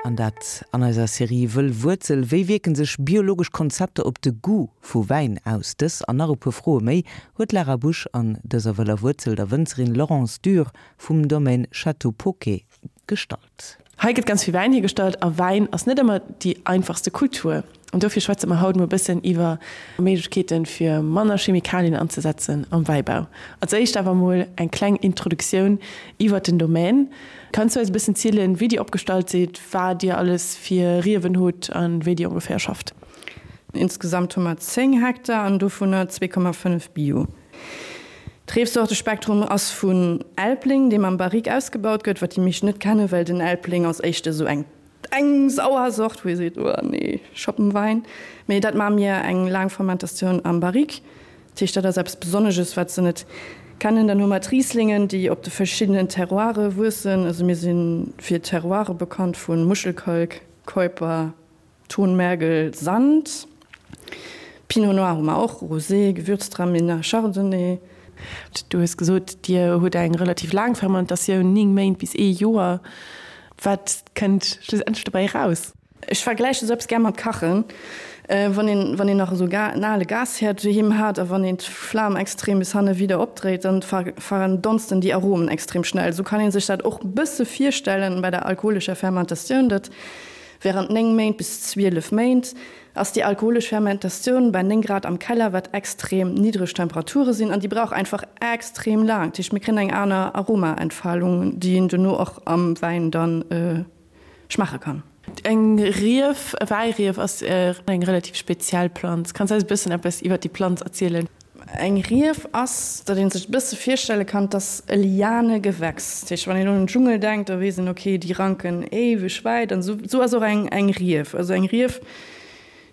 An dat an eiser Serie Wëll Wuerzel. Wéi wierken sech biologesch Konzepter op de Goût vu Wäin aus? Dës an nach e puer Froe méi huet d'Lara Busch an dëser Wëller Wuerzel der Wënzerin Laurence Dürr vum Domaine Château Poquet gestallt. Hei gëtt ganz vill Wäin hiergestallt a Wäin ass net ëmmer déi einfachste Kultur. An dofir schwätze mer haut mol e bëssen iwwer Méiglechkeeten, fir manner Chemikalien anzesetzen am Wäibau. Als éischt awer mol eng kleng Introduktioun iwwer den Domaine. Kanns du eis e bëssen zielen, wéi dir opgestallt sidd, wat dir alles fir Riewen hutt a wéi dir ongeféier schafft? Insgesamt hu mer 10 Hektar an dovunner 2,5 Bio. D'Reefsortespektrum ass vun Elbling, deem am Barrique ausgebaut gëtt, wat déi meescht net kennen, well den Elbling ass éischter esou eng eng sauer Sort, wou ee seet, oh nee, Schoppenwein. Mee dat maache mir eng laang Fermentatioun am Barrique. Dat heescht, dat ass eppes Besonnesches, wat se net kennen. Dann hu mer d'Rieslingen, déi op de verschiddenen Terroire wuessen. Also mir si fir Terroire bekannt vu Muschelkalk, Keuper, Tonmergel, Sand, Pinot Noir hu mer och, Rosé, Gewürztraminer, Chardonnay. Du hues gesot, Dir hutt eng relativ laang Fermentatioun, 9 Méint bis ee Joer. Wat kënnt schlussendlech dobäi eraus? Ech vergläiche sou eppes gär mat Kachen. Wann een, wann een nach esou en ale Gashäerd doheem hat a wann een d'Flam extrem bis hanne widder opdréit, dann verdonsten déi Aromen extrem schnell. Sou kann ee sech dat och e bësse virstellen bei der alkoholescher Fermentatioun, datt Während 9 Méint bis 12 Méint ass déi alkoholesch Fermentatioun bei 9 Grad am Keller, wat extrem niddreg Temperature sinn, an déi brauch einfach extrem laang. Dat heescht, mir kréien eng aner Aromaentfalung, déi een duerno och am Wäin dann schmaache kann. Eng Rief, e Wäirief ass eng relativ speziell Planz. Kanns eis e bëssen eppes iwwert déi Planz erzielen? Eng Rief ass, datt ee sech e bësse virstelle kann, 't ass e Lianegewächs. Dat heescht, wann een un den Dschungel denkt, da weess een, okay, déi ranken éiweg wäit. An esou esou ass och eng eng Rief. Also eng Rief,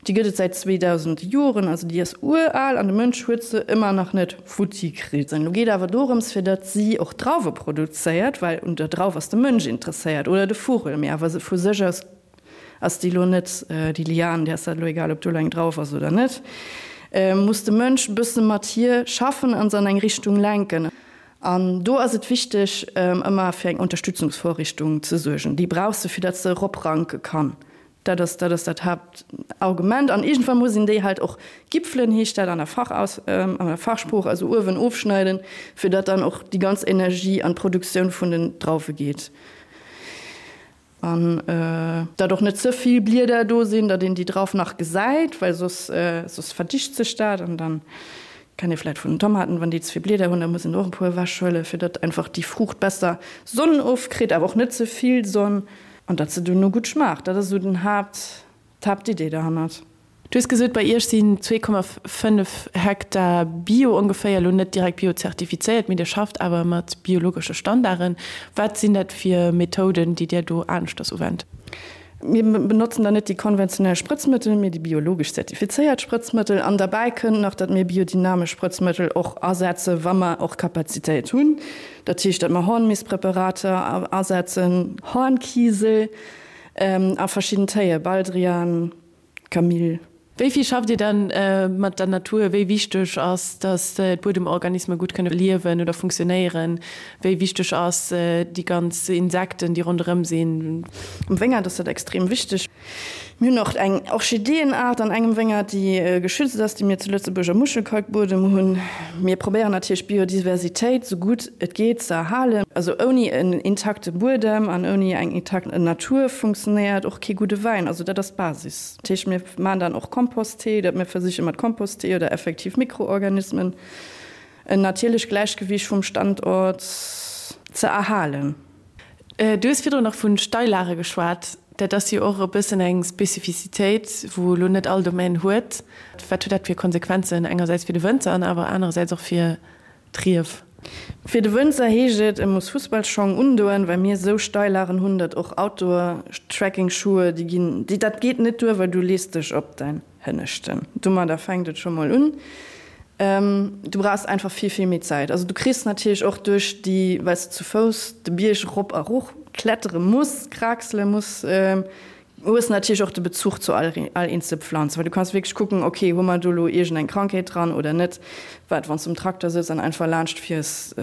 déi gëtt et säit 2000 Joren, also déi ass ural an de Mënsch huet se ëmmer nach net futti kritt. An elo geet awer dorëms, fir datt si och Drauwe produzéiert, well un der Drauf ass de Mënsch interesséiert oder de Vugel, mee awer vu sech aus Ass déi lo net, déi Lian, där ass dat elo egal, ob do elo eng drauf ass oder net, muss de Mënsch e bësse mat hir schaffen an se an eng Richtung lenken. An do ass et wichteg, ëmmer fir eng Unterstützungsvorrichtung ze suergen. Déi brauch se, fir datt se eropranke kann. Dat ass, dat ass dat Haaptargument. An iergendwann muss een déi halt och gipfelen, heescht dat an der Fachaus, an der Fachsprooch, also uewen ofschneiden, fir datt dann och déi ganz Energie an d'Produktioun vun den Drauwe geet. An datt och net ze vill Blieder do sinn, datt een déi Drauf nach gesäit, well soss soss verdicht sech dat. An dann kennt ee vläit vun den Tomaten, wann déi ze vill Blieder hunn, da muss een och e puer ewech huelen, fir datt einfach déi Fruucht besser Sonn ofkritt, awer och net ze vill Sonn, an datt se duerno gutt schmaacht. Dat ass esou den Haapt, d'Haaptidee derhannert. Du hues gesot, bei Iech sinn 2,5 Hektar Bio ongeféier, elo net direkt bio-zertifizéiert, mee Dir schafft awer mat biologesche Standarden. Wat sinn dat fir Methoden, déi Dir do aneschters uwennt? Mir benotzen da net déi konventionell Sprëtzmëttel, mee déi biologesch zertifizéiert Sprëtzmëttel. An derbäi kënnt nach, datt mir biodynamesch Sprëtzmëttel och asetzen, wa mer och Kapazitéit hunn. Dat heescht, datt mer Hornmistpräparater asetzen, Hornkiesel a verschidden Téie, Baldrian, Camille. Wéi vill schafft Dir dann mat der Natur? Wéi wichteg ass, datt d'Buedemorganisme gutt kënne liewen oder funktionéieren? Wéi wichteg ass déi ganz Insekten, déi ronderëm sinn? Am Wéngert ass dat extrem wichteg. Mir hunn och eng Orchideeënaart an engem Wéngert, déi geschützt ass, déi mir zu Lëtzebuerg am Muschelkalkbuedem hunn. Mir probéieren natierlech d'Biodiversitéit esou gutt et geet ze erhalen. Also ouni en intakte Buedem an ouni eng intakt Natur funktionéiert och kee gudde Wäin. Also dat ass d'Basis. Dat heescht, mir maachen dann och Komposttee, datt mir versiche mat Komposttee oder effektiv Mikroorganismen en natierlecht Gläichgewiicht vum Standort ze erhalen. Du hues virdrun nach vu Steillage geschwat. Dat ass jo och e bëssen eng Spezifizitéit, wou elo net all Domaine huet. Wat huet dat fir Konsequenzen, engersäits fir de Wënzer an awer anerersäits och fir d'Rief? Fir de Wënzer heescht et, e muss Fussballschong undoen, well mir esou Steillagen hunn, datt och Outdoor-Trekkingschuhe, déi ginn, déi, dat geet net duer, well du lees dech op däin Hënneschten. Domadder fänkt et scho mol un. Du brauchs einfach vill, vill méi Zäit. Also du kriss natierlech och duerch déi, well s de zu Fouss de Bierg erop a erof klettere muss, kraxele muss, hues natierlech och de Bezuch zu all all eenzel Pflanz, well du kanns wierklech kucken, ok, hu mer do elo iergend eng Krankheet dran oder net, wat wann s du um Trakter sëtz an einfach laanscht fiers,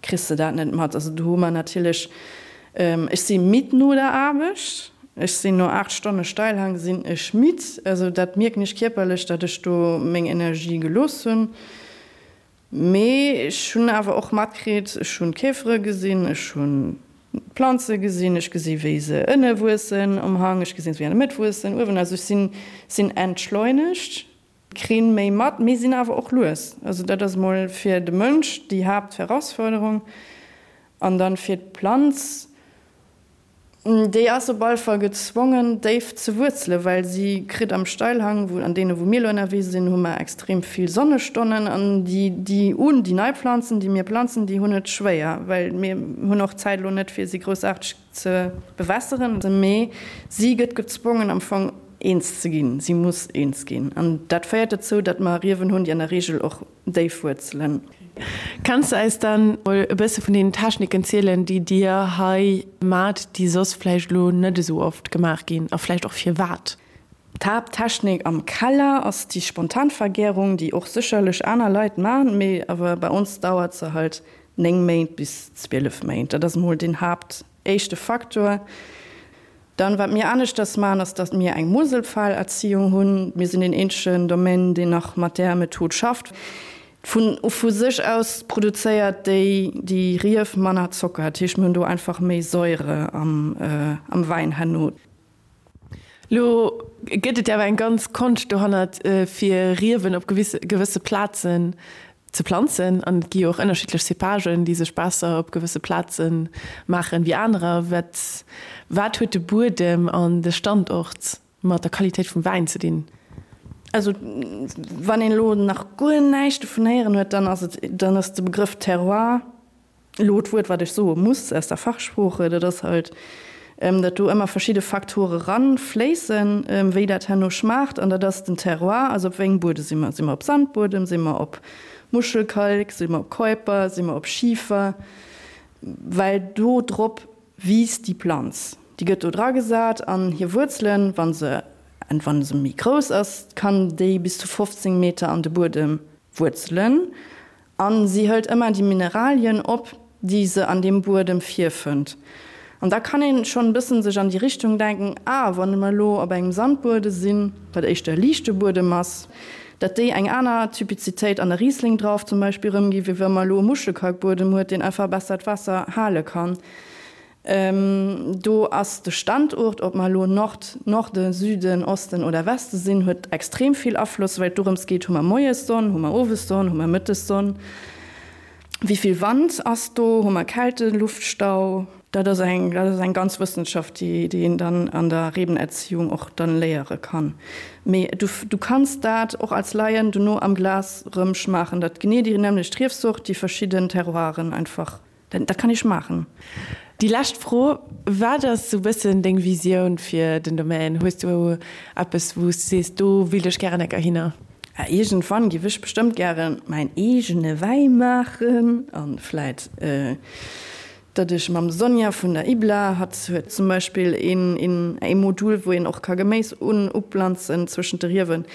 kriss de dat net mat. Also do hu mer natierlech, ech si midd no der Aarbecht. Ech sinn no 8 Stonne Steilhang sinn ech midd. Also dat mierken ech kierperlech, datt ech do meng Energie gelooss hunn. Mee ech hunn awer och matkritt, ech hunn d'Käfere gesinn, ech hunn d'Planze gesinn, ech gesi wéi se ënne wuessen um Hang, ech gesinn se wéi an der Mëtt wuessen, uewen. Also ech sinn sinn entschleunegt, krinn méi mat, mee sinn awer och lues. Also dat ass emol fir de Mënsch déi Haaptherausforderung. An dann fir d'Planz, Déi ass op all Fall gezwongen, déif ze wuerzelen, well si kritt am Steilhang, wou, an deene wou mir elo ënnerwee sinn, hu mer extrem vill Sonnestonnen an déi, déi un, déi nei Planzen, déi mir planzen, déi hunn et schwéier, well mir hunn och d'Zäit elo net, fir si groussaarteg ze bewässeren. Mee si gëtt gezwongen am Fong eens ze ginn, si muss eens ginn an dat féiert dozou, datt mer Riewen hunn, déi an der Reegel och déif wuerzelen. Kanns de eis dann mol e bësse vun deenen Techniken zielen, déi dir hei maacht, déi soss vläicht elo net esou oft gemaach ginn a vläicht och firwat? D'Haapttechnik am Keller ass déi Spontanvergärung, déi och sécherlech aner Leit maachen, mee awer bei ons dauert se halt 9 Méint bis 12 Méint. Dat ass mol deen Haapt éischte Faktor. Dann, wat mir aneschters maachen, ass, datt mir eng Moselpfahlerziehung hunn. Mir sinn deen eenzegen Domaine, deen nach mat där Method schafft. Vun vu sech aus produzéiert déi déi Rief manner Zocker. Dat heescht, mir hunn do einfach méi Säure am am Wäin herno. Lo gëtt et jo awer eng ganz Konscht dohannert, fir Riewen op gewësse Plazen ze planzen an et gi jo och ënnerschiddlech Cépagen, déi sech besser op gewësse Plaze maachen wéi anerer. Wat wat huet de Buedem an de Standort mat der Qualitéit vum Wäin ze dinn? Also wann een elo nach guer näischt dovun héieren huet, dann ass et dann ass de Begrëff Terroir Elo d'Wuert, wat ech soe muss aus der Fachsprooche, dat ass halt, datt do ëmmer verschidde Faktore ranfléissen, wéi dat herno schmaacht. An dat ass den Terroir, also op wéi engem Buede si mer. Si mer op Sandbuedem, si mer op Muschelkalk, si mer op Keuper, si mer op Schifer? Well do drop wiisst déi Planz. Déi gëtt do dragesat an hir Wuerzelen, wa se, wa se méi grouss ass, kann déi bis zu 15 Meter an de Buedem wuerzelen. A si hëlt ëmmer déi Mineralien op, déi se an deem Buedem virfënnt. An da kann een schonn e bëssen sech an déi Richtung denken, ah, wann mer elo op engem Sandbuede sinn, wat éischter e liichte Buedem ass, datt déi eng aner Typizitéit an der Riesling-Drauf zum Beispill erëmginn, wéi wa mer elo e Muschelkalkbuedem huet, deen einfach besser d'Waasser hale kann. Do ass de Standort, ob mer elo Nord, Norden, Süden, Osten oder Weste sinn, huet extrem vill Afloss, well et dorëms geet, hu mer moies Sonn, hu mer owes Sonn, hu mer mëttes Sonn, wéi vill Wand ass do, hu mer Kälteluftstau. Dat ass eng, dat ass eng ganz Wëssenschaft, déi, déi een dann an der Rebenerziehung och dann léiere kann. Mee du, du kanns dat och als Laien dono am Glas rëm schmaachen, datt genee déi nämmlecht Riefsort, déi verschidden Terroiren einfach. Dat kann ee schmaachen. Déi lescht Fro, Wat ass sou bëssen deng Visioun fir den Domaine? Hues du eppes wou s du sees, do willt ech gären enker hinner? Iergendwann giff ech bestëmmt gären mäin eegene Wäi maachen an vläit datt ech mam Sonja vun der IBLA, hatt huet zum Beispill een ee Modul wou een och ka Geméis un uplanzen zwëschent de Riewen,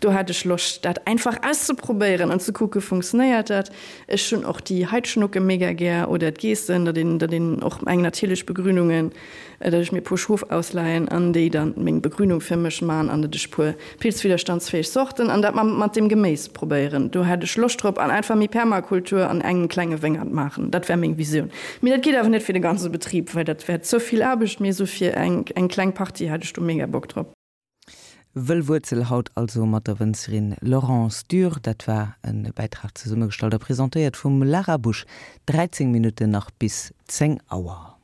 do hätt ech Loscht dat einfach auszeprobéieren an ze kucke funktionéiert dat. Ech hunn och déi Heidschnucke mega gär oder d'Geessen, datt een, datt een och eng natierlech Begrünungen, datt ech mir e puer Schof ausleihen an déi dann meng Begrünung fir mech man an datt ech puer pilzwiderstandsfähig Sorten an dat mat dem Geméis probéieren. Do hätt ech Loscht drop an einfach méi Permakultur an engem klenge Wéngert maachen. Dat wär meng Visioun. Mee dat geet awer net fir de ganze Betrib, well dat wär ze vill Aarbecht, mee esou fir eng, eng kleng Partie hätt ech do mega Bock drop. Wëll Wuerzel haut also mat der Wënzerin Laurence Dürr. Dat war e Bäitrag zesummegestallt a presentéiert vum Lara Busch. 13 Minutten nach bis 10 Auer.